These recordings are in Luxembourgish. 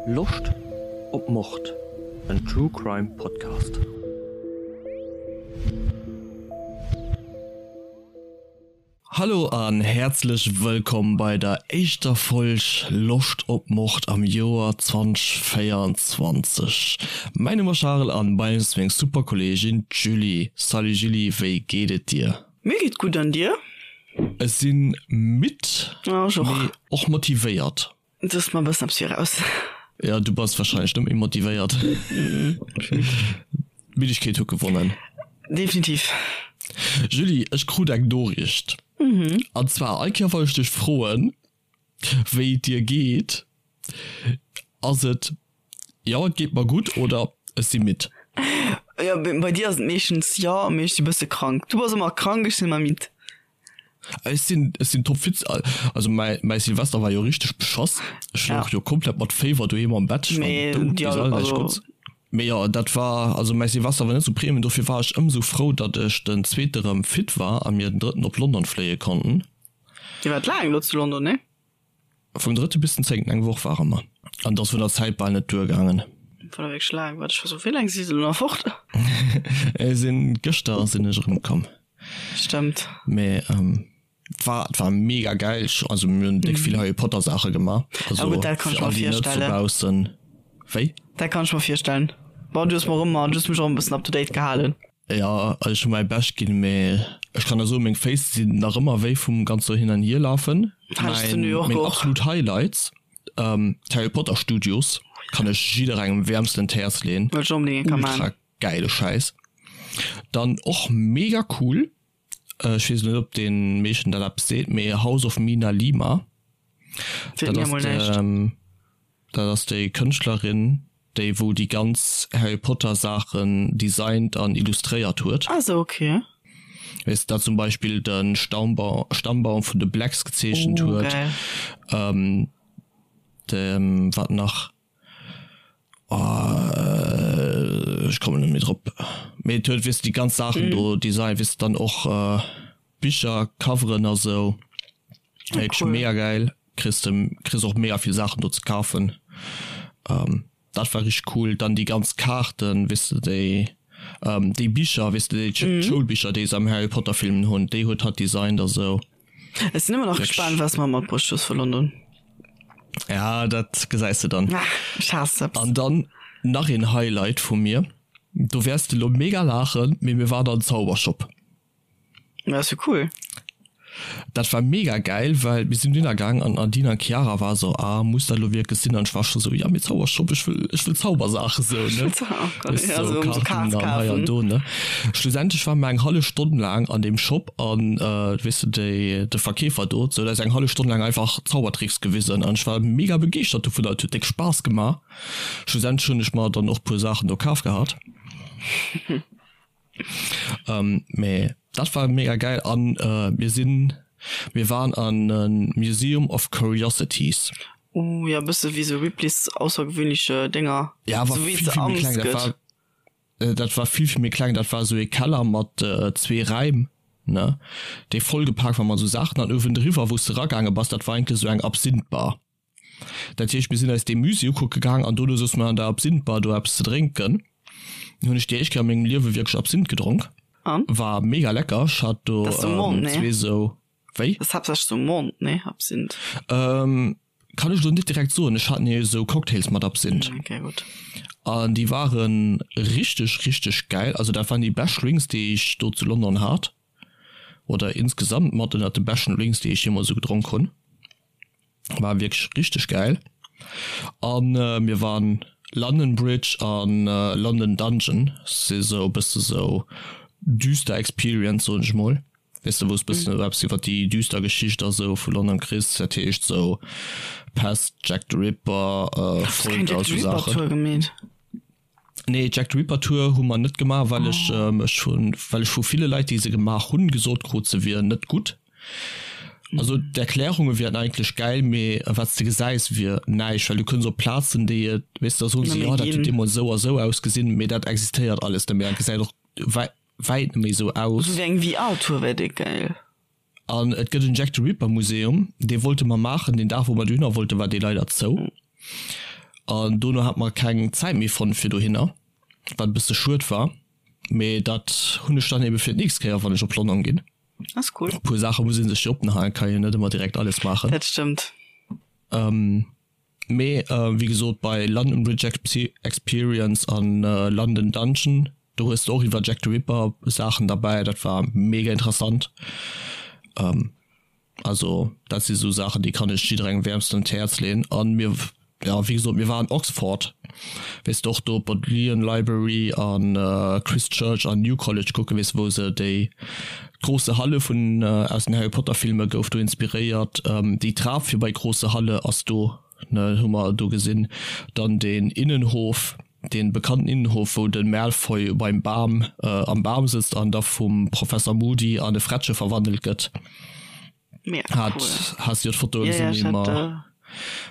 Loscht op Mord? En True Crime Podcast. Hallo an häerzlech wëllkomm bei der éischter Folg Loscht op Mord am Joer 2024. Mäin Numm ass Charel an bei mir ass meng super Kolleegin d'Julie. Salut Julie, wéi geet et dir? Mir geet gutt, an dir? Ech sinn midd, mee och motivéiert. Du hues mer e bëssen eppes viraus. Jo, du bass wahrscheinlech net méi motivéiert. D'Middegkeet huet gewonnen. Definitiv. Julie, ech krut eng Noriicht. An zwar, all Kéier wann ech dech froen, wéi et dir geet, ass et, Jo, et geet mer gutt oder Ech si midd. Jo, bei dir ass et meeschtens jo, mee ech si bësse krank. Du bass ëmmer krank, ech sinn ëmmer midd. Ech sinn, ech sinn topfit. Also mäi, mäi Silvester war jo richteg beschoss. Ech louch jo komplett mat Féiwer doheem am Bett. Ech war dout bis all näischt Gutts. Mee jo, dat war, also mäi Silvester war net sou premium, dofir war ech ëmsou frou, datt ech den zweete rëm fit war a mir den drëtten op London fléie konnten. Dir waart laang elo zu London, nee? Vum drëtte bis den zéngten, eng Woch ware mer. An et ass vun der Zäit bal net duergaangen. War wierklech laang. Wat, ech war sou, wéi laang si se elo nach fort? Ech sinn, gëschter sinn ech erëmkomm. Stëmmt. Mee et war, et war mega gäil. Ech, also mir hunn déck vill Harry Potter Saache gemaach. Also gutt, dat kann ech fir mer all déi net virstellen. dobaussen, wéi? Dat kann ech mer virstellen. Bon, du hues mer och ëmmer, du hues mech och e bëssen up to date gehalen. Jo, ech hu mäi Bescht ginn, mee ech kann der soen, meng Féiss sinn nach ëmmer wéi vum ganze Hin an Hierlafen. Hat ech zu New York Meng och. absolut Highlights, d'Harry Potter Studios, kann ech jidderengem wäermsten d'Häerz leen. Wëll ech onbedéngt eng Kéier Ultra man. gäile Schäiss. Dann och mega cool, ech weess net op den meeschten dat eppes seet, mee House of Mina Lima, Seet dat mir ass mol näischt. dat ass déi Kënschtlerin, déi wou déi ganz Harry Potter Saachen designt an illustréiert huet. Ah sou, ok. Weess dat zum Beispill de Staumbaum Stammbaum vun de Blacks gezeechent Oh, huet. geil. Ähm, de wat nach? Oh, ech kommen net méi drop. Mee et huet weess de déi ganz Saachen do designt, weess de dann och Bicher Coveren a sou. Wierklech Cool. mega gäil. Kriss de kriss och mega vill Saachen do ze kafen. Ähm, dat war richteg cool. Dann déi ganz Kaarten, weess de déi ähm, déi Bicher, weess de déi mhm. Schoulbicher, déi se am Harry Potter Filmen hunn, déi huet hatt designt a sou. Ech sinn ëmmer nach gespaant, was mer matbruecht hues vu London. Ja, dat gesäis de dann. Ah, ech haass eppes. An dann nach een Highlight vu mir. Do wäers de lo mega laachen, mee mir waren an Zaubershop. Dat ass jo cool. Dat war mega gäil, well mir sinn dunner gaang an d'Nadine an d'Chiara war sou, ah muss dat lo wierklech sinn? An ech war scho sou, ja mee Zaubershop, ech wëll, ech wëll Zaubersaache sou, ne? Weess de, sou sou Kaarten an hei an do, ne? Schlussendlech ware mer eng hallef Stonn laang an deem Shop an, weess de, déi, de Verkeefer do huet eis eng hallef Stonn laang einfach Zaubertricks gewisen an ech war mega begeeschtert dovunner, et huet déck Spaass gemaach. Schlussendlech hunn ech mer dann och puer Saachen do kaf gehat. Ähm, mee dat war mega geil an äh, mir sinn mir waren an en Museum of Curiosities. Uh, ja bësse wéi sou Ripley's aussergewöhnliche Dénger. Ja, war Sou wéi vill se vill méi Amts kleng. Dat gëtt. war äh, dat war vill vill méi kleng. Dat war sou ee Keller mat äh, zwee Räim, ne, dee vollgepaakt war mat sou Saachen an uewendriwwer, wou s de ragaange bass, dat war eigentlech sou eng Absinth-Bar. Dat heescht, mir sinn eis dee Musée ukucke gaang an dono souze mer an der Absinth-Bar do eppes ze drénken. Hunn ech déi éischt Kéier a mengem Liewe wierklech Absinth gedronk. An? War mega lecker. Ech hat do Dat ass um Mond, nee? zwee sou, wéi? Dat ass haaptsächlech um Mond, nee? Absinth. Kann ech elo net direkt soen. Ech hat nee esou Cocktails mat Absinth. Okay, gutt. An déi ware richteg, richteg gäil. Also dat waren déi bescht Drinks, déi ech do zu London hat. Oder insgesamt mat ënnert de beschten Drinks, déi ech jeemools esou gedronk hunn. War wierklech richteg gäil. An mir waren London Bridge an London Dungeon, si sou e bësse sou düster Experience soen ech mol. Weess de wou s bëssen esou eppes iwwer déi düster Geschicht a sou vu London kriss. Dat heescht sou Pest, Jack the Ripper, Folter a sou Saachen. Nee, Jack the Ripper Tour hu mer net gemaach, well ech mech vun, well ech vu ville Leit, déi se gemaach hunn, gesot krut, se wier net gutt. Also d'Erklärunge wieren eigentlech gäil, mee wat s de gesäis wier näischt, well du kënns op Plazen, déi et, weess de, da soen se, jo dat huet deemools esou a esou ausgesinn, mee dat existéiert alles net méi an et gesäit och wäit net méi esou aus. Esou wéi eng VR-Tour wär déck gäil. An et gëtt en Jack the Ripper Museum, dee wollte mer maachen. Deen Dag wou mer dohinner wollten, war dee leider zou. An dono hat mer keng Zäit méi fonnt fir dohinner, wat e bësse schued war. Mee dat hunn ech dann ebe fir d'nächst Kéier, wann ech op London ginn. Ass cool. E puer Saache muss ee sech jo oppen halen, kann een net ëmmer direkt alles maachen. Dat stëmmt. Mee wéi gesot, bei London Bridge Experience an London Dungeon, do hues de och iwwer Jack the Ripper Saachen derbäi, dat war mega interessant. Also dat si sou Saachen, déi kann ech jidderengem wäermstens un d'Häerz leeën. An mir, jo wéi gesot, mir waren Oxford, weess de, och do Bodleian Library an Christ Church an New College kucken, weess de, wou se déi große Halle vun aus den Harry Potter Filme gouf do inspiréiert. Déi Trap fir bei große Halle ass do, ne, hu mer do gesinn. Dann den Innenhof, dee bekannten Innenhof, wou de Malfoy beim Bam am Bam sëtzt an da vum Professor Moody an e Frettche verwandelt gëtt. Mega Hat, cool. has jo d'Fotoe Ja, ja, gesinn, ech déi hat, mer,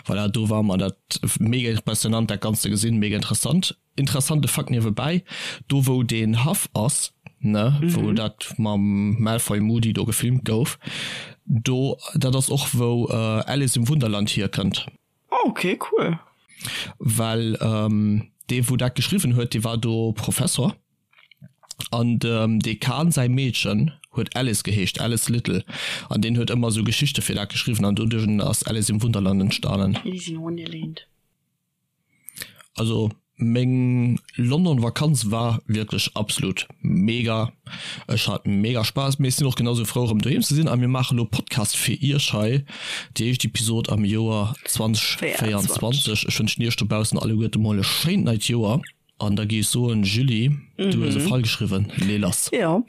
voilà, do war mer dat mega impressionant dat Ganzt ze gesinn, mega interessant. Interessante Fakt niewebäi, do wou deen Haff ass, ne, wou dat mam Malfoy Moody do gefilmt gouf, do, dat ass och wou Alice im Wunderland hierkënnt. Oh, ok, cool. Well dee wou dat geschriwwen huet, dee war do Professor an dem Dekan säi Meedchen huet Alice geheescht, Alice Little, an deen huet ëmmer esou Geschichte fir dat geschriwwen an doduerch ass Alice im Wunderland entstanen. Alice in Wonderland. Also meng London Vakanz war wierklech absolut mega. Ech hat mega Spaass, mee ech sinn och genau sou frou erëm doheem ze sinn a mir maache lo Podcast fir iech hei, déi éischt Episod am Joer 2024. Ech wënschen iech dobaussen alleguerte mol e schéint neit Joer an da géif ech soen, Julie, du hues e Fall geschriwwen, lee lass. Jo,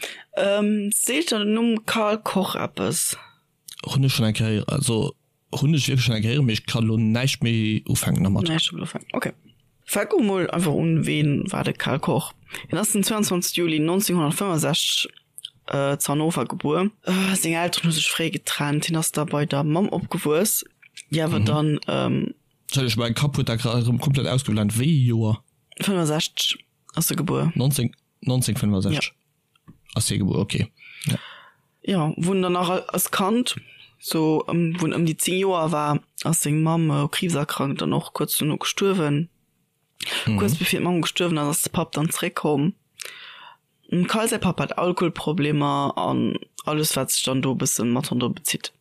seet der den Numm Carl Koch eppes? Hunn ech schonn eng Kéier, also Hunn ech wierklech schon eng Kéier héieren, mee ech kann elo näischt méi ufänken dermat. Näischt domat ufänken, ok. Fänke mol einfach un, Ween war de Karl Koch? Hien ass den 22 Juli 1965 zu Hannover gebuer. Seng Elteren hu sech fréi getrennt, hien ass da bei der Mamm opgewuess, déi awer dann. Entschëllegt, mäi Kapp huet dat grad erëm komplett ausgeblent. Wéi ee Joer? 65 ass e gebuer. 19, 1965? Ass hie gebuer, ok. Ja. Jo, wou en dann nach als Kand, sou ëm, wou en ëm déi 10 Joer war, ass seng Mamm u Kriibs erkrankt an och kuerz dono gestuerwen. Kuerz bevir d'Mamm gestuerwen ass, ass de Papp dann zeréckkomm. Dem Kyle säi Papp hat Alkoholproblemer an alles, wat sech dann do e bësse mat ronderëm bezitt.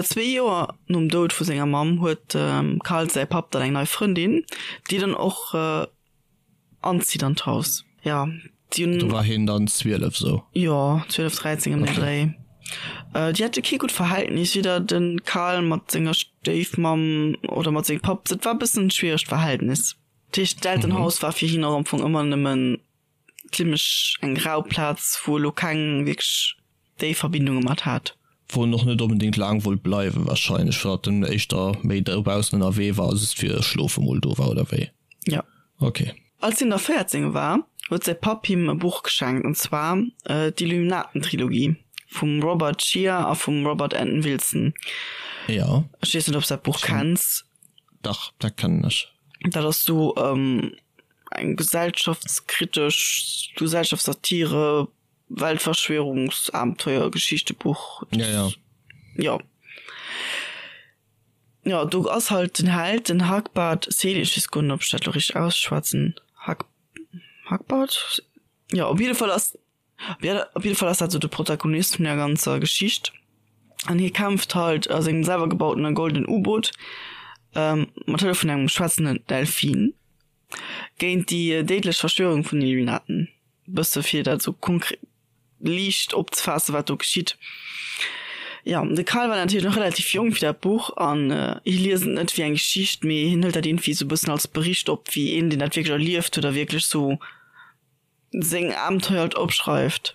Zwee Joer nom Doud vu senger Mamm huet dem Kyle säi Papp dann eng nei Frëndin, déi dann och Anzitt an d'Haus, ja. Déi hunn. Do war hien dann 12 sou? Jo, 12, 13 ëm den Dréi. Déi hate kee gutt Verhältnis, weder de Karl mat senger Stéifmamm oder mat sengem Papp. Dat war e bëssen e schwieregt Verhältnis. Dat heescht, d'Elternhaus war fir hien och am Fong ëmmer nëmmen zimmlech eng rau Plaz, wou elo keng wierklech déif Verbindunge mat hat. Wou en och net onbedéngt laang wollt bleiwen wahrscheinlech, well en éischter méi dobaussen ënnerwee war a just fir schlofe mol do war, oder wéi? Jo. Ok. Als hien da 14 war, huet säi Papp him e Buch geschenkt, an zwar d'Illuminaten-Trilogie vum Robert Shea a vum Robert Anton Wilson. Jo. Ech weess net, ob s dat Buch kenns. Dach, dat kennen ech. Dat ass sou eng gesellschaftskritesch, Gesellschaftssatire, Weltverschwörungsabenteuer-Geschichtebuch. Ja, ja. Jo. Jo, do ass halt den Held, den Hagbard Selig, ech weess guer net, ob ech dat elo richteg ausschwätzen, Hag, Hagbard? Jo, op jidde Fall ass, op jidde Fall ass dat esou de Protagonist vun der ganzer Geschicht. An hie kämpft halt a sengem selwer gebautene goldenen U-Boot, mat Hëllef vun engem schwätzenden Delfin, géint déi déidlech Verschwörung vun den Illuminaten. Bësse fir dat esou konkret liicht opzefaassen, wat do geschitt. Jo, de Karl war natierlech nach relativ jonk fir dat Buch an hie liest et net wéi eng Geschicht, mee hien hëlt dat iergendwéi esou e bëssen als Bericht op, wéi een, deen dat wierklech erlieft huet a wierklech esou seng Abenteuer halt opschreift.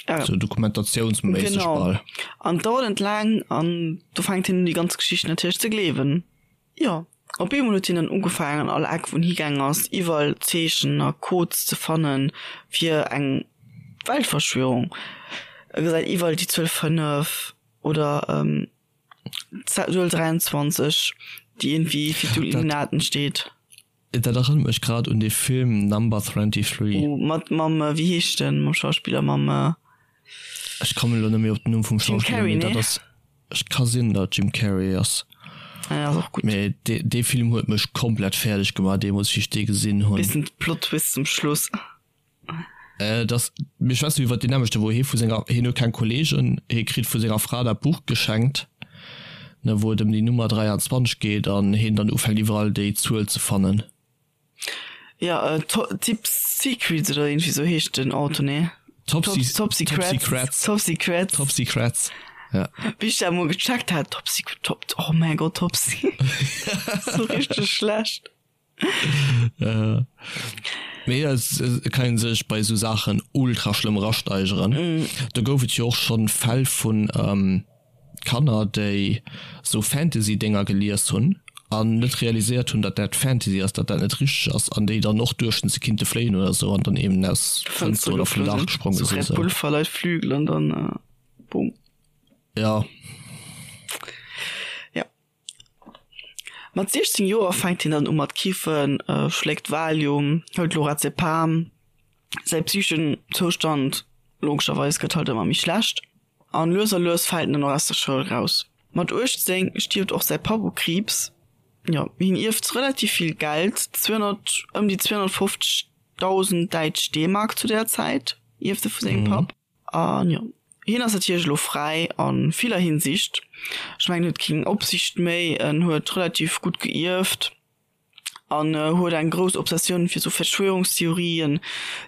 Sou dokumentatiounsméisseg bal. Genau. An et dauert net laang an do fänkt hien un déi ganz Geschicht natierlech ze gleewen. Jo, op eemol huet hien dann ugefaangen an all Eck wou en higaang ass, iwwerall Zeechen a Codes ze fanne fir eng Weltverschwörung. E gesäit iwwerall déi Zuel 5 oder d'Zuel 23, déi iergendwéi fir d'Illuminaten steet. Dat erënnert mech grad un dee Film Number 23. Oh, mat mam, wéi heescht en, mam Schauspiller, mam. Ech kommen elo net méi op den Numm vum Jim Schauspiller, Carrey, mee dat nee? ass, ech ka sinn, datt et Jim Carrey ass. Ja, ass och gutt. Mee dee, dee Film huet mech komplett fäerdeg gemaach deemools, wéi ech dee gesinn hunn. Bissen Plot Twist zum Schluss. Äh, dass, mir schwätzen iwwert deen nämmlechten, wou hie vu senger, hien huet keng Kollegen, hie kritt vu senger Fra dat Buch geschenkt, ne, wou et ëm déi Nummer 23 geet an hien dann ufänkt iwwerall déi Zuel ze fannen. Ja, äh, Top Secrets oder irgendwie sou heescht den Auto, nee? Top, Top, Top Secrets. Top Secrets. Top Secrets. Ja. Wéi ech dat emol gecheckt hat, Top Secret, Top, oh mäin Gott, Top Secret. Sou richteg schlecht. Äh, mee et et kann een sech bei esou Saachen ultra schlëmm erasteigeren. Mm. Do gouf et jo och schonn Fäll vun ähm, Kanner, déi esou Fantasy-Dénger gelies hunn an net realiséiert hunn, datt dat Fantasy ass, datt dat net richteg ass an déi dann och duechten, se kinnte fléien oder esou an dann eben aus Fënster oder vum Daach gespronge sinn. Red Bull verleiht Flügel an dann äh, boom. Ja. Ja. Mat 16 Joer fänkt hien dann u mat kiffen, schléckt Valium, hëlt Lorazepam. Säi psycheschen Zoustand, logescherweis, gëtt halt ëmmer méi schlecht an lues a lues fält en dann och aus der Schoul raus. Mat 18 stierft och säi Papp u Kriibs. Jo, hien ierft relativ vill Geld, 200, ëm déi 250.000 däitsch D-Mark zu där Zäit ierft e vu sengem Papp. An jo, hien ass natierlech elo fräi a viller Hinsicht. Ech mengen, en huet keng Opsicht méi, en huet relativ gutt geierft an huet eng grouss Obsessioun fir sou Verschwörungstheorien,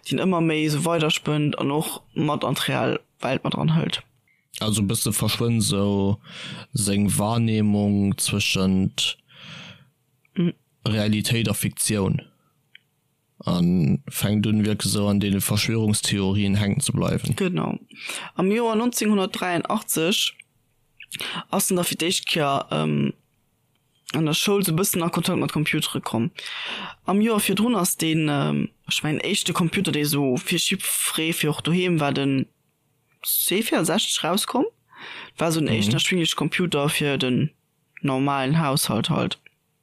déi en ëmmer méi sou weiderspënnt an och mat an d'real Welt mat eranhëlt. Also e bësse verschwënnt sou seng Wahrnehmung zwëschent Realitéit a Fiktioun. A fänkt un wierklech esou an deene Verschwörungstheorien hänken ze bleiwen. Genau. Am Joer 1983 ass en da fir d'éischt Kéier an der Schoul sou bëssen a Kontakt mat Computere komm. Am Joer virdrun ass deen, ech mengen, éischte Computer, dee sou fir jiddweree, fir och doheem war, den C64 rauskomm. War sou den éischten erschwingleche Computer fir den normalen Haushalt halt.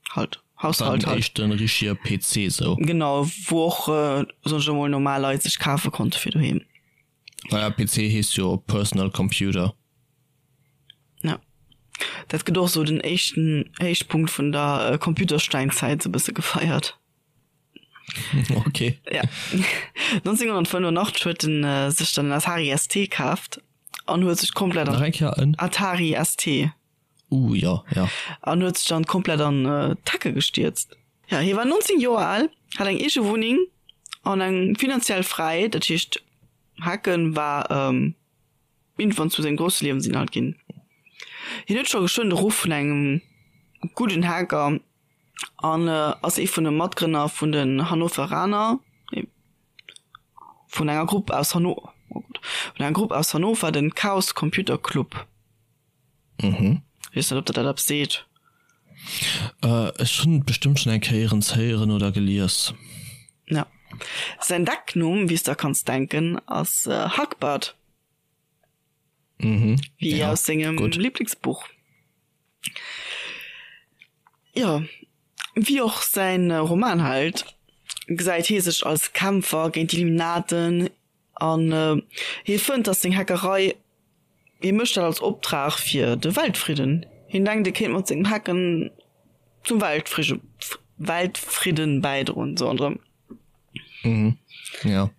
Halt, Haushalt halt. Den éischten richtige PC sou. Genau, wou och, soen ech emol, normal Leit sech kafe konnte fir doheem. Naja, PC heescht jo Personal Computer. Ja. Dat gëtt och sou den éischten Héichpunkt vun der Computersteinzäit sou bësse gefeiert. Okay. Ja. 1985 huet en sech dann en Atari ST kaaft an huet sech komplett an. Nach eng Kéier en? Atari ST. Uh, jo, jo. An huet sech dann komplett an d'Hecke gestierzt. Ja, hie war 19 Joer al, hat eng eege Wunneng an eng finanziell Fräiheet, dat heescht Hacken war iergendwann zu sengem grousse Liewensinhalt ginn. Hien huet scho geschwënn de Ruff vun engem gudden Hacker an ass ee vun de Matgrënner vun den Hannoveraner, nee, vun enger Grupp aus Hanno, oh Gott, vun enger Grupp aus Hannover, den Chaos Computer Club. Mhm. Weess net, ob der dat eppes seet. Äh, ech hunn et bestëmmt schonn eng Kéier héieren oder gelies. Ja. Säin Decknumm, wéi s der kanns denken, ass Hackbart. Mhm. Wéi Ja, aus sengem gutt. Liblingsbuch. Jo, wéi och säin Romanheld gesäit hie sech als Kämpfer géint d'Illuminaten an hie fënnt, datt seng Hackerei Hie mécht dat als Optrag fir de Weltfridden. Hien denkt, e kéint mat sengem Hacken zum Weltfridden bäidroen, sou an drëm. Mhm, ja.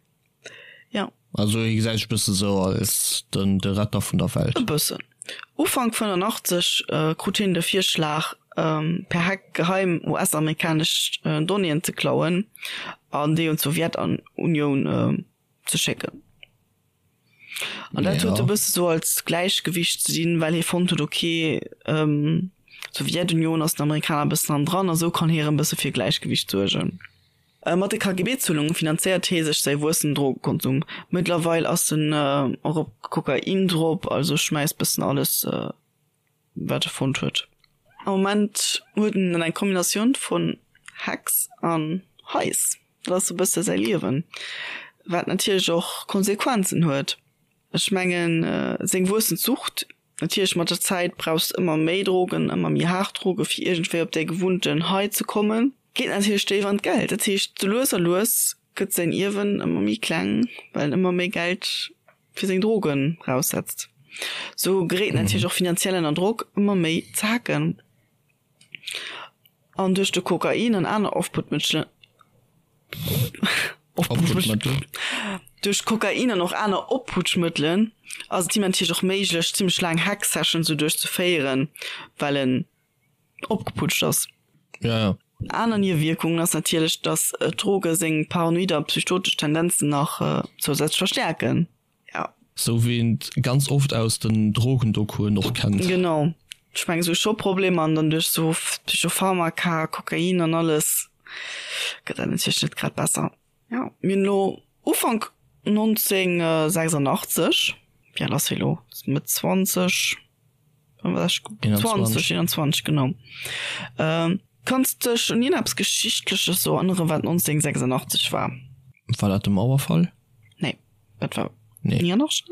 Ja. Also hie gesäit sech e bësse sou als den, de Retter vun der Welt. E bëssen. Ufank 85 krut hien de Virschlag, per Hack geheim US-amerikanesch Donnéeën ze klauen an déi un d'Sowjetunioun ze schécken. An dat huet e bësse sou als Gläichgewicht ze dinn, well hie fonnt huet, okay, d'Sowjetunion ass den Amerikaner e bëssen hannendran a sou kann hie erëm bësse fir Gläichgewicht suergen. Mat de KGB-Zuelunge finanzéiert hie sech säi wuessenden Drogekonsum. Mëttlerweil ass en och op Kokain drop, also schmäisst bëssen alles. Wat e fonnt huet. Am Moment huet en dann eng Kombinatioun vun Hex an Hais. Dat ass e bësse säi Liewen, wat natierlech och Konsequenzen huet. Ech mengen, seng wuessend Sucht, natierlech mat der Zäit brauchs de ëmmer méi Drogen, ëmmer méi haart Droge fir iergendwéi op däi gewunnten High ze kommen, geet natierlech déif an d'Geld. Dat heescht, sou lues a lues gëtt säin Ierwen ëmmer méi kleng, well en ëmmer méi Geld fir seng Drogen raussetzt. Sou geréit en natierlech och finanziell ënner Drock, ëmmer méi ze hacken. An duerch de Kokain an aner Ofputmëttelen, Opputschmëttel. Duerch Kokain an och aner Opputschmëttelen ass et him natierlech och méiglech, zimmlech laang Hack-Sessions sou duerchzeféieren, well en opgeputscht ass. Ja, ja. Aner Niewierkungen ass natierlech, dass d'Droge seng paranoid a psychotesch Tendenzen nach zousätzlech verstäerken. Ja. Sou wéi een et ganz oft aus den Drogendoku'en och kennt. Genau. Ech mengen sou scho Problemer an dann duerch sou Psychopharmaka, Kokain an alles gëtt dat natierlech net grad besser. Ja, mir hunn elo Ufank 1986, wéi al ass hie elo? Mëtt 20, 20, 21, genau. Kanns dech un ierneppes Geschichtleches sou erënneren, wat 1986 war? War dat de Mauerfall? Nee, dat war 89,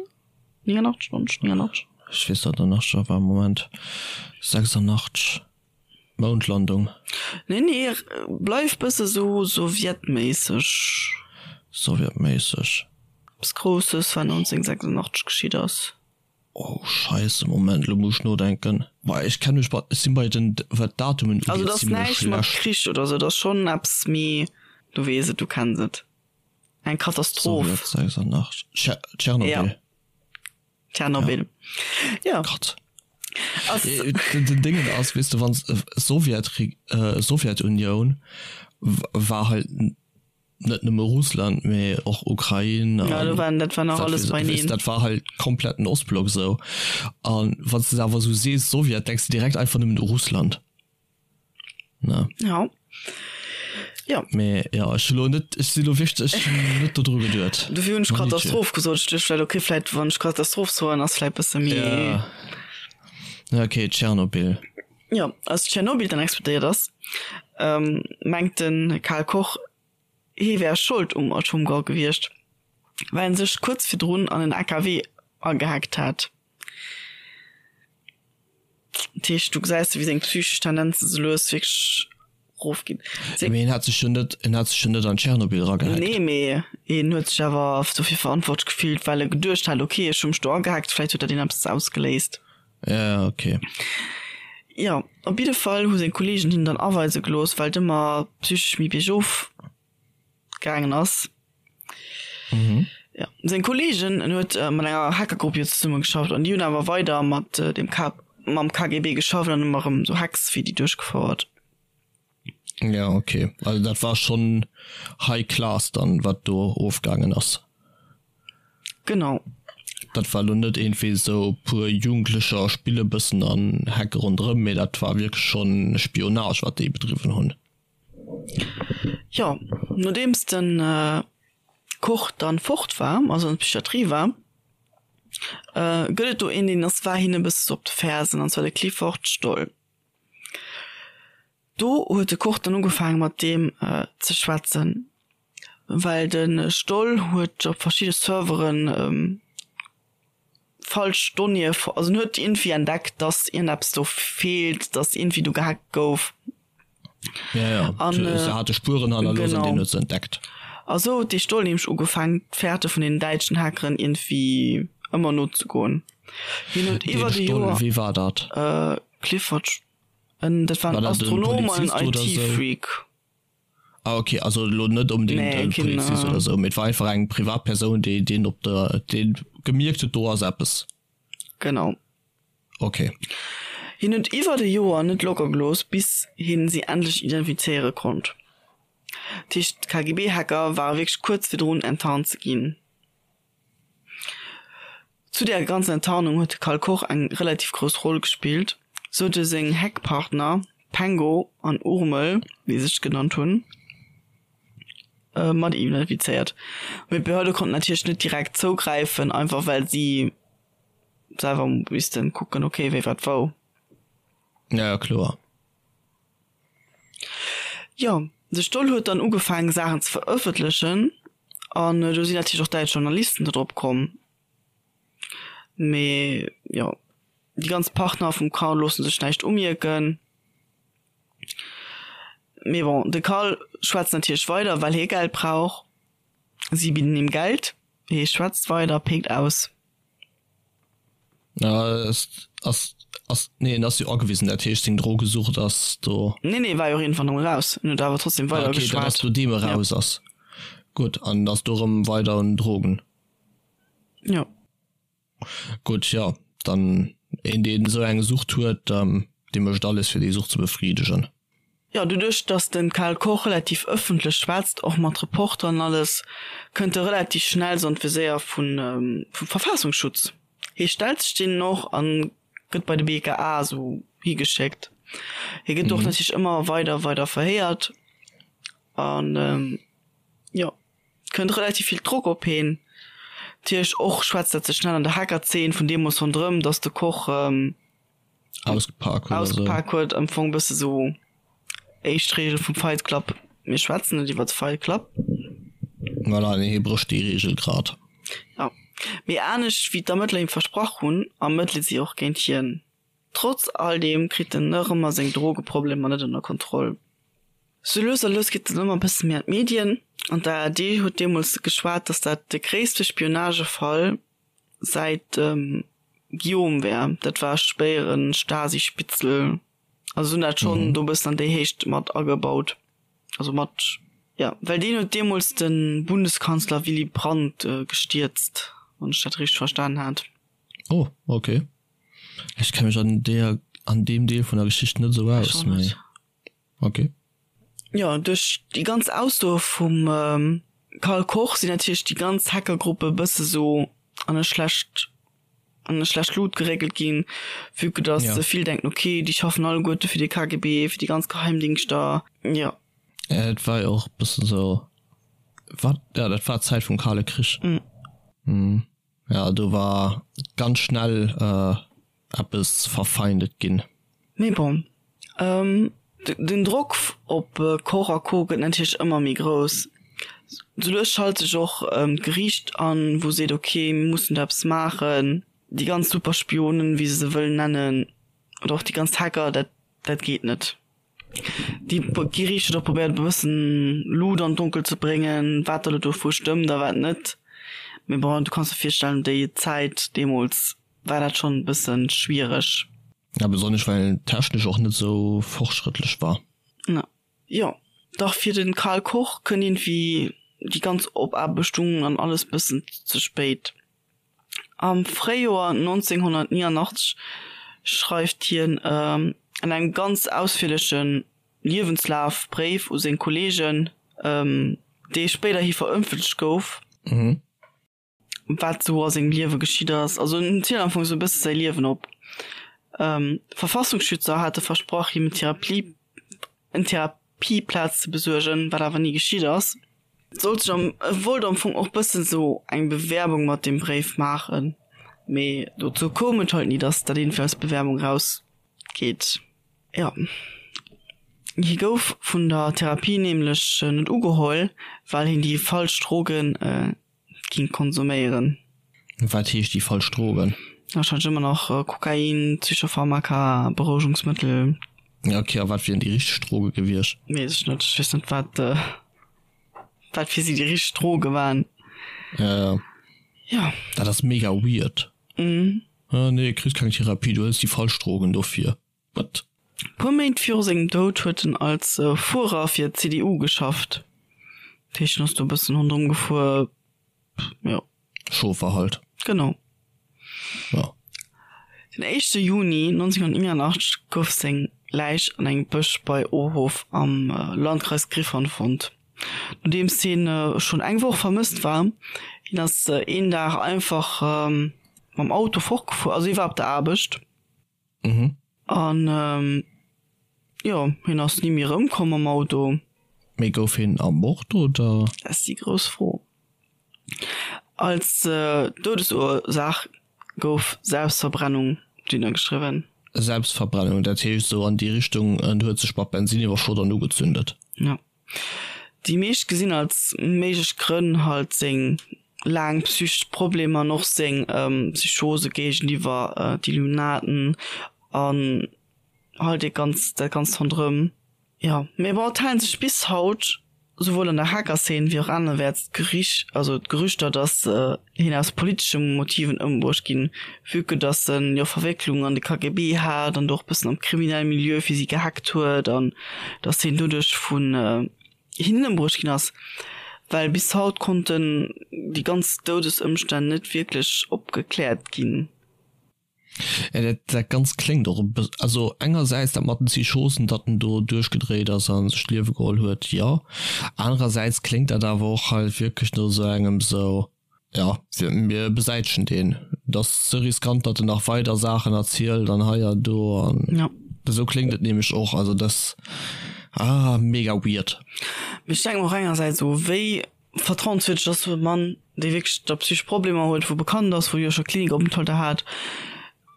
89, 90, 89. Ech weess dat nach net, war Moment 86. Moundlandung. Nee, nee, bleif bësse sou sowjetméisseg. Sowjetméisseg. Eppes Grousses, wat 1986 geschitt ass. Oh Scheisse, Moment, lo muss ech nodenken. Boah, ech kenn mech bei, ech sinn bei den, wat d'Datumen ugeet, Also, et ass näischt mat Krich oder sou, et ass schonn eppes méi, du weess et, du kenns et. Eng Katastroph. Sowjet 86, Tschernobyl. Ja. Tschernobyl. Ja. Gott. Den Dingen ass, weess de, wann Sowjet, Sowjetunioun war halt net nëmme Russland, mee och Ukrain an ja, waren, dat war nach alles beineen. Dat war halt komplett den Ostblock sou. An wann s de awer sou sees Sowjet, denks de direkt einfach nëmmen u Russland. Ne? Ja. Ja. Mee ja, ech hu lo net, ech si lo wierklech, ech hunn net dodru geduet. Dofir hunn ech Katastroph gesot. Ech duecht vläicht, okay, vläicht wann ech Katastroph soen, ass vläicht bësse méi. Ja. Ja, okay, Tschernobyl. Jo, als Tschernobyl dann explodéiert ass, mengt de Karl Koch, hie wär Schold um Atomgrau gewiescht, well en sech kuerz virdrun an en AKW agehackt hat. Dat heescht, do gesäis de, wéi seng psychesch Tendenze sou lues wierklech erofginn. Mee en hat sech jo net, en hat sech jo net an Tschernobyl eragehackt. Nee, mee en huet sech awer dofir verantwortlech gefillt, well e geduecht hat, okay, ech hu mech do agehackt, vläicht huet dat een eppes ausgeléist. Ja, okay. Jo, op jidde Fall hu seng Kolleegen hien dann aweise gelooss, well et ëmmer psychesch méi biergof gaangen ass. Mhm. Ja, seng Kolleegen, en huet mat enger Hackergrupp jo zesumme geschafft an déi hunn awer weider mat dem K mam KGB geschafft an ëmmer erëm sou Hacks fir déi duerchgefouert. Ja, okay. Also dat war schon high class dann, wat do ofgaangen ass. Genau. Dat war lo net iergendwéi sou puer Jugendlecher spille bëssen an hacke ronderëm, mee dat war wierklech schon Spionage, wat déi bedriwwen hunn. Jo, nodeems de Koch dann fort war, also an der Psychiatrie war, gëtt et do een, deen ass war hien e bësse sou op de Fersen, an zwar de Clifford Stoll. Do huet de Koch dann ugefaange mat deem ze schwätzen, well de Stoll huet op verschidde Serveren falsch Donnéeë, also en huet iergendwéi entdeckt, datt iergendeppes do feelt, datt iergendwéi do gehackt gouf. Ja, ja. An, se hate Spueren hannerlooss an deen huet se entdeckt. A sou huet dee Stoll nämlech ugefaangen, d'Fährte vun den däitschen Hackeren iergendwéi ëmmer nozegoen. Hien huet Deen iwwer de Stoll, Joer. wee war dat? Clifford, en, dat war en War dat en Astronom an en Polizist oder sou? IT-Freak. Ah ok, also elo net onbedéngt Nee, en keen, Polizist oder sou, mee et war einfach eng Privatpersoun, déi deen op der, dee gemierkt huet, do ass eppes. Genau. Ok. Hien huet iwwert e Joer net locker gelooss, bis hien si endlech identifizéiere konnt. Dat heescht, d'KGB-Hacker ware wierklech kuerz virdrun enttarnt ze ginn. Zu där ganzer Enttarnung huet de Karl Koch eng relativ grouss Roll gespillt, sou huet e seng Hackpartner Pengo an Urmel, wéi se sech genannt hunn, mat identifizéiert. Mee d'Behörde konnten natierlech net direkt zougräifen, einfach well si selwer missten kucken, ok, wéi wat wou. Ja, ja, kloer. Jo, de Stoll huet dann ugefaangen Saachen ze verëffentlechen an do sinn natierlech och däitsch Journalisten do drop komm. Mee jo, déi ganz Partner vum Karl loosse sech näischt umierken. Mee bon, de Karl schwätzt natierlech weider, well hie Geld brauch. Si bidden him Geld, hie schwätzt weider, péckt aus. Ja. Ass, ass, nee, en ass jo agewisen, dat heescht seng Drogesucht ass do. Nee, nee, war jo och iergendwann erëm eraus. En huet awer trotzdem weider geschwat. Okay, dat ass nodeem e raus ass. Gutt, an ass do erëm weider un Drogen. Jo. Gutt, jo, dann een deen esou eng Sucht huet, dee mécht alles fir déi Sucht ze befriedegen. Jo, doduerch datt de Karl Koch relativ ëffentlech schwätzt, och mat Reporteren an alles, kënnt e relativ schnell sou an d'Viséier vun vum Verfassungsschutz. Hie stellt sech deenen och an gëtt bei de BKA sou higeschéckt. Hie gëtt och natierlech ëmmer weider weider verhéiert an jo. Kënnt relativ vill Drock op heen. Natierlech och schwätzt dat sech schnell an der Hackerzeen vun deemools ronderëm, dass de Koch ausgepak huet, ausgepak huet. Am Fong bësse sou éischt Reegel vum Fight Club, mir schwätzen net iwwer de Fight Club. Voilà, nee, hie brécht déi Reegel grad. Jo, mee anescht wéi d'Ermëttler him versprach hunn, ermëttele si och géint hien. Trotz all deem kritt en nach ëmmer seng Drogeproblemer net ënner Kontroll. Sou lues a lues geet en ëmmer e bësse méi an d'Medien an d'ARD huet deemools geschwat, datt dat de gréisste Spionagefall säit dem Guillaume wär. Dat war spéiere Stasi-Spitzel. Also se hunn dat schonn do e bëssen an déi Héicht mat agebaut. Also mat, jo, well deen huet deemools de Bundeskanzler Willy Brandt gestierzt, wann ech dat richteg verstanen hat. Oh, okay. Ech kenne mech an deer, an deem Deel vun der Geschicht net esou aus, mee okay. Jo, duerch déi ganz Aussoe vum Karl Koch sinn natierlech déi ganz Hackergruppe e bësse sou an e schlecht, an e schlecht Lut geréckelt ginn, vue que dass se vill denken, okay, déi schaffen alleguerte fir de KGB, fir déi ganz Geheimdingschter, jo. Et war jo och e bëssen sou, wat, jo, dat war d'Zäit vum Kale Krich. Ja, do war ganz schnell eppes verfeindet ginn. Mee bon, den Drock op Koch a Co gëtt natierlech ëmmer méi grouss. Sou lues schalt sech och d'Geriicht an, wou seet, ok, mir mussen do eppes maachen. Déi ganz Superspionen, wéi se se wëllen nennen, oder och déi ganz Hacker, dat dat geet net. Déi Geriicht huet och probéiert e bëssen Lut an d'Donkel ze bréngen, wat da lo dovu stëmmt a wat net. Mee bon, du kanns der virstellen, déi Zäit deemools war dat schonn e bëssen schwiereg. Ja, besonnesch well technesch och net esou fortschrëttlech war. Na jo, dach fir de Karl Koch kënnt iergendwéi déi ganz Opaarbechtung an alles bëssen ze spéit. Am Fréijoer 1989 schreift hien an engem ganz ausfierleche Liewenslafbréif u seng Kolleegen, dee spéiderhi verëffentlecht gouf, wat sou a sengem Liewe geschitt ass. Also en zielt am Fong sou e bësse säi Liewen op. Verfassungsschützer hate versprach, him en Therapieplaz ze besuergen, wat awer ni geschitt ass. Sollt sech am, e wollt am Fong och bëssen sou eng Bewerbung mat deem Bréif maachen, mee dozou koum et halt ni, dass dat iergendwéi als Bewerbung raus geet. Jo, hie gouf vun der Therapie nämlech net ugeholl, well hien déi falsch Drogen ging konsuméieren. Wat heescht déi falsch Drogen? Wahrscheinlech ëmmer nach Kokain, Psychopharmaka, Berouegungsmëttel. Ja ok, a wat wieren déi richteg Droge gewiescht? Weess ech net, ech weess net wat wat fir si déi richteg Droge waren. Ja ja. Ja. Dat ass mega weird. Mhm. Ah nee, kriss keng Therapie, du hëls déi falsch Drogen dofir. What? Puer Méint viru sengem Doud huet en als Fuerer fir d'CDU geschafft. Dat heescht, en ass do e bëssen ronderëm gefuer, jo. Chauffer halt. Genau. Ja. Den éischte Juni 1989 gouf seng Läich an engem Bësch bei Ohof am Landkreis Gryphon fonnt. Nodeems hien schonn eng Woch vermësst war. Hien ass een Dag einfach mam Auto fortgefuer, also hie war op der Aarbecht. Mhm. An jo, hien ass ni méi erëmkomm mam Auto. Mee gouf hien ermort oder? Dat ass déi grouss Fro. Als Doudesursaach gouf Selbstverbrennung dunner geschriwwen. Selbstverbrennung, dat heescht esou an déi Richtung, en huet sech mat Bensin iwwerschott an ugezündet. Jo. Déi meescht gesinn als méiglech Grënn halt seng laang psychesch Problemer an och seng Psychose géigeniwwer d'Illuminaten an halt dee ganz dat ganzt ronderëm. Jo, mee bon, et halen sech bis haut. Souwuel an der Hacker-Szene wéi och anerwäerts d'Gerich, also d'Gerüchter, datt hien aus politesche Motiven ëmbruecht ginn, vue que datt en jo Verwécklungen an de KGB hat an do och bëssen am kriminelle Milieu fir si gehackt huet an datt hien doduerch vun hinnen ëmbruecht ginn ass. Well bis haut konnten déi ganz Doudesëmstänn net wierklech opgekläert ginn. Ja, dat, dat Ganzt kléngt och e bëss, also engersäits dat mat den Psychosen, datt en do duerchgedréit ass a sech d'Liewe geholl huet, jo. Anerersäits kléngt dat awer och halt wierklech no esou engem esou, ja, mir besäitegen deen, et ass ze riskant, datt en nach weider Saachen erzielt an hei an do an Ja. esou kléngt et nämlech och. Also dat, ah, mega weird. Mee ech denke mer och engersäits esou, wéi Vertrauenswierdeg ass e Mann, dee wierklech da psychesch Problemer huet, wou bekannt ass, wou jo scho Klinikopenthalter hat.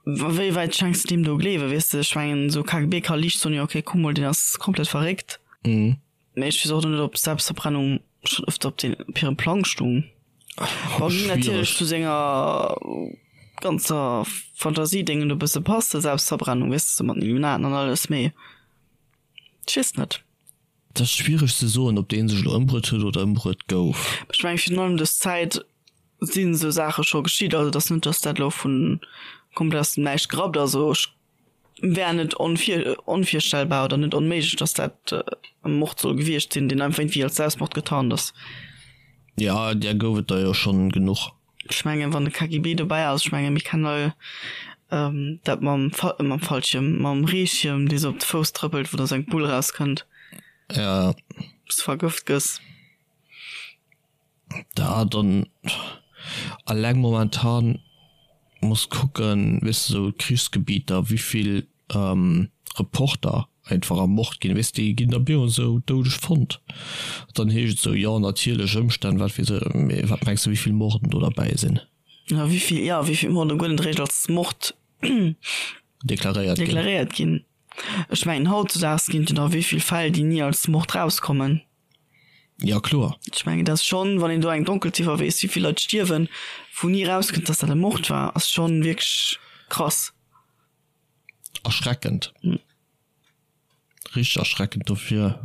Wéi wäit schenks de deem do Gleewen, weess de? Ech mengen, esou KGB ka liicht soen, jo okay, kuck mol, deen ass komplett verréckt. Mee ech weess och net, ob Selbstverbrennung schonn ëfter op den, op hirem Plang stung. Bon, géing natierlech zu senger ganzer Fantasiedéngen do e bësse passen, Selbstverbrennung, weess de, sou mat den Illuminaten an alles, mee ech weess net. Et ass schwiereg ze soen, ob dee sech elo ëmbruet huet oder ëmbruet gouf. Ech mengen, virun allem dës Zäit sinn esou Saache scho geschitt. Also et ass net, datt dat elo vu komplett aus dem Näischt gerappt ass. Also ech wär net onvirstellbar oder net onméiglech, datt dat e Mord soll gewiescht sinn, deen einfach iergendwéi als Selbstmord getarnt ass. Jo, där gouf et der jo schonn genuch. Ech mengen, wann de KGB dobäi ass, ech mengen, mir kennen all dat mam mam Fallschierm, mam Reeschierm, dee sou op de Fouss trëppelt, wou da sou eng Bull rauskënnt. Ja. Wou s de vergëft gëss. Da dann alleng momentan muss kucken, weess de, sou Krichsgebieter, wéivill Reporter einfach ermort ginn, weess déi ginn da bemol esou doudeg fonnt, dann heescht et esou, jo natierlech Ëmstänn, wat weess ech, mee wat mengs de wéivill Morden do derbäi sinn? Jo wéivill, jo wéivill Morden guer net eréischt als Mord deklaréiert ginn. Deklaréiert ginn. Ech mengen hautzedaags ginn et jo nach wéivill Fäll déi ni als Mord rauskommen. Jo kloer. Ech mengen dat ass schonn, wann een do eng Donkelziffer weess wéivill Leit stierwen, wou ni rauskënnt datt dat e Mord war, ass schonn wierklech krass. Erschreckend. Richteg erschreckend dofir.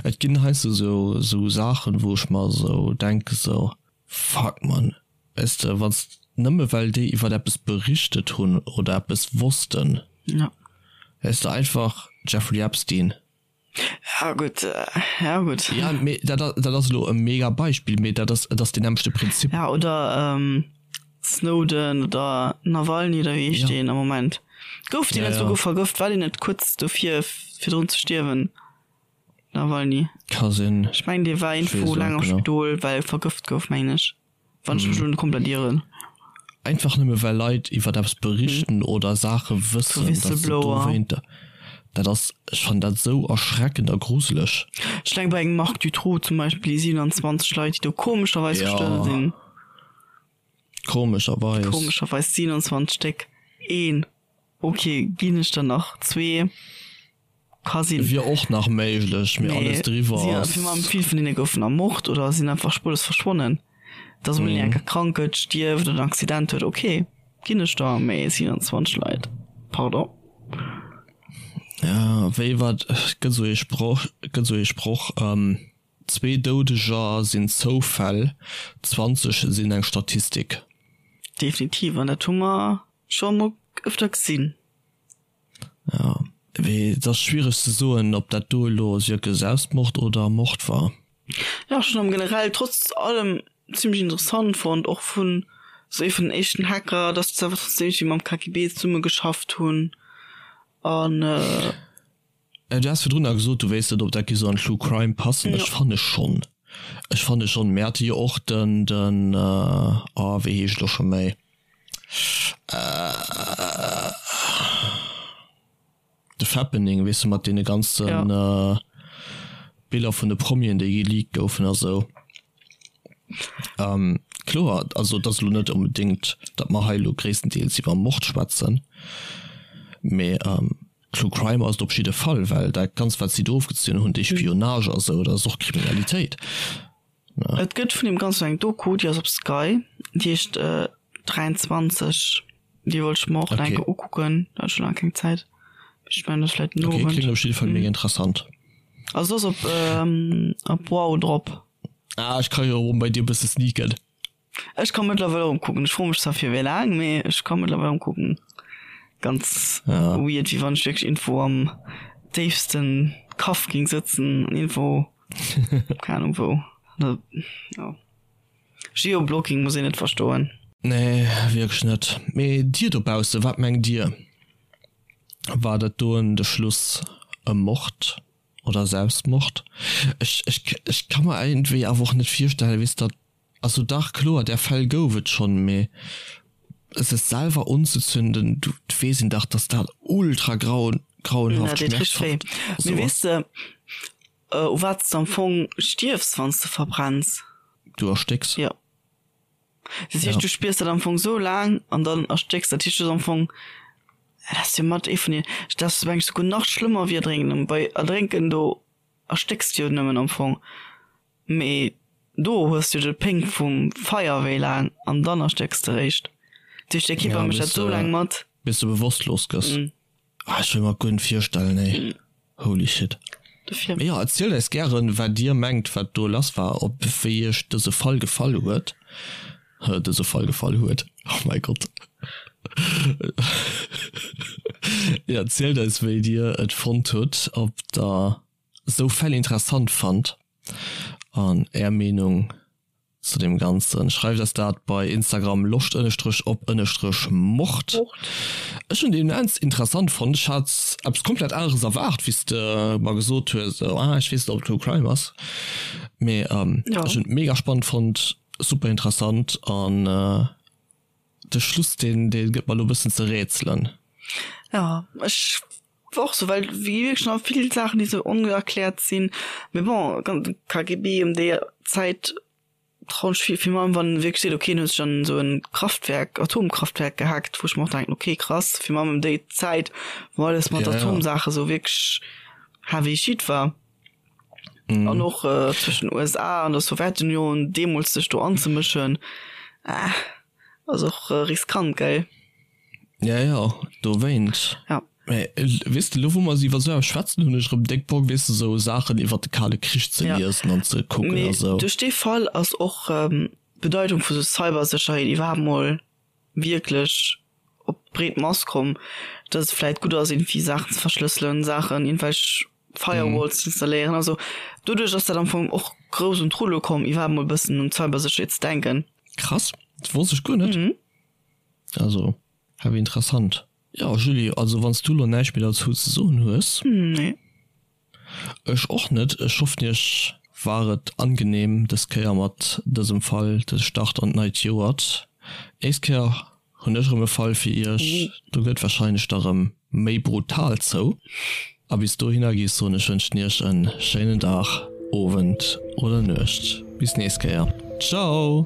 Et ginn heiansdo sou sou Saachen, wou ech mer sou denke sou, fuck man, weess de, wann s nëmme well déi iwwert eppes berichtet hunn oder eppes wossten, weess de, einfach Jeffrey Epstein. Ja gutt, ja gutt. Ja, mee dat, dat ass elo e mega Beispill, mee dat ass, et ass deen nämmlechte Prinzip. Ja, oder Snowden oder Nawalny oder wéi heescht deen am Moment? Gouf deen net souguer vergëft? War deen net kuerz dofir virdrun ze stierwen? Nawalny? Ka sinn. Ech mengen dee war iergendwou laang am Spidol, well e vergëft gouf, mengen ech. Wann ech mech elo net komplett ieren. Einfach nëmme well Leit iwwert eppes berichten oder Saache wëssen, dass se dowéinter. Dat ass, ech fannen dat esou erschreckend a gruseleg. Ech denke bei engem Marc Dutroux zum Beispill, déi 27 Leit, déi do komescherweis gestuerwe sinn. Komescherweis. Komescherweis 27 Stéck. Een, ok, ginn ech der nach. Zwee. Ka sinn. Wier och nach méiglech, mee alles driwwer ass. Vill vun hinne goufen ermort oder sinn einfach spurlos verschwonnen. Dass emol een enker krank gëtt, stierft oder en Accident huet, ok, ginn ech der, mee 27 Leit, pardon. Ja, wéi wat, et gëtt esou ee Sproch, et gëtt esou ee Sproch, zwee Doudeger sinn Zoufäll, 20 sinn eng Statistik. Definitiv, an dat hu mer scho emol ëfter gesinn. Jo, mee et ass schwiereg ze soen, ob dat do elo wierklech Selbstmord oder Mord war. Jo, ech hunn am generell trotz allem zimmlech interessant fonnt, och vun sou ee vun den éischten Hacker, dass se awer trotzdem iergendwéi mam KGB zesumme geschafft hunn an. Du has virdrun gesot, du wéisst net, ob dat géif sou an True Crime passen. Ech fanne schonn, ech fanne schonn. Mir hate jo och den, den, oh wéi heescht elo scho méi? De Fappening, weess de, mat deene ganze Biller vun de Promien, déi geleakt goufen a sou. Kloer, also et ass elo net onbedéngt, datt mer hei elo gréisstendeels iwwer Mord schwätzen, mee True Crime ass et op jidde Fall, well dat Ganzt, wat si do ofgezunn hunn, déi Spionage a sou, dat ass och Kriminalitéit. Et gëtt vun deem Ganzen eng Doku, déi ass op Sky, déi heescht 23. Déi wollt ech mer och nach eng Kéier ukucken, da hat ech scho laang keng Zäit. Ech mengen, dat ass vläicht den Owend. Okay, kléngt op jidde Fall mega interessant. Also ass op op Wow drop. Ah ech ka jo erëm bei dir bësse sneaken. Ech ka mëttlerweil erëm kucken. Ech froe mech zwar fir wéi laang, mee ech ka mëttlerweil erëm kucken. Ganz Ja. weird, wéi wann ech wierklech irgendwou am déifsten Kaff ging sëtzen an irgendwou, keng Ahnung wou. Ja. Geoblocking muss een net verstoen. Nee, wierklech net. Mee dir dobausse, wat mengt dir? War dat doen de Schluss e Mord oder Selbstmord? Ech, ech, ech ka mer iergendwéi awer och net virstellen, weess datt, also dach kloer, där Fäll gouf et schonn, mee sech selwer unzezünden, du weess een dach, datt dat ultra grau, grauenhaft, Dat deet richteg wéi. schmerzhaft Mee esou weess ass. de, u wat s de am Fong stierfs, wann s de verbrenns? Du erstécks. Jo. Dat heescht, Ja. du spiers dat am Fong sou laang an dann erstécks. Dat heescht, du hues am Fong, dat ass jo mat ee vun den, dat ass mengen ech souguer nach schlëmmer wéi erdrénken. Bei erdrénken, do erstécks de jo nëmmen am Fong, mee do hues du jo de Péng vum Feier wéi laang an dann erstécks de réischt. Dat heescht, de Kierper Ja, mécht dat bis sou de, laang mat. bis de bewosstlos gëss. Ah, ech wëll mer guer net virstellen, ey. Holy shit. Dofir. Mee jo, erzielt eis gären, wat dir mengt, wat do lass war, ob wéi iech dëse Fall gefall huet. Dëse Fall gefall huet, oh mäi Gott. Jo, erzielt eis, wéi dir et fonnt hutt, ob der esou Fäll interessant fannt an är Meenung zu dem Ganzen. Schreift eis dat bei Instagram loscht ënnestrech op ënnestrech Mord. Ech hunn déi immens interessant fonnt. Ech hat eppes komplett aneres erwaart, wéi s de mer gesot hues, esou ah ech weess net ob et True Crime ass. Mee ech hunn et mega spannend fonnt, super interessant an de Schluss deen dee gëtt mer elo e bëssen ze rätselen. Jo, ech war och sou, well wéi wierklech nach vill Saachen déi sou onerkläert sinn. Mee bon, KGB ëm déi Zäit trauen ech vill vill mann, wann en wierklech seet, ok en huet sech an esou en Kraftwerk, Atomkraftwerk gehackt, wou ech mer och denken, ok krass, fir mann ëm déi Zäit wou alles mat Atomsaache sou wierklech heavy shit war. An och zwëschen USA an der Sowjetunion deemools sech do anzemëschen, ass och riskant, gell? Ja, ja, dowéint. Ja. Mä weess de, elo wou mer iwwer esou eppes schwätzen, hunn ech erëm déck Bock, weess de, esou Saachen iwwer de Kale Krich ze Ja. liesen an ze kucken a Mee sou. duerch dee Fall ass och d'Bedeitung vu sou Cybersécherheet iwwerhaapt mol wierklech op d'breet Mass komm, dass et vläit gutt ass, iergendwéi Saachen ze verschlësselen, Saachen, iergendwelch Firewalls ze installéieren. Also doduerch ass dat am Fong och grouss un d'Rulle komm, iwwerhaapt mol e bëssen un d'Cybersécherheet ze denken. Krass, dat wosst ech guer net. Also heavy interessant. Jo Julie, also wanns du lo näischt méi derzou ze soen hues. Nee. Ech och net. Ech hoffen iech war et angenehm des Kéier mat dësem Fall de Start an d'neit Joert. Nächst Kéier hunn ech erëm e Fall fir iech, do gëtt wahrscheinlech da rëm méi brutal zou. A bis dohinner gi soen ech wënschen iech en schéinen Dag, Owend oder Nuecht. Bis nächst Kéier. Ciao!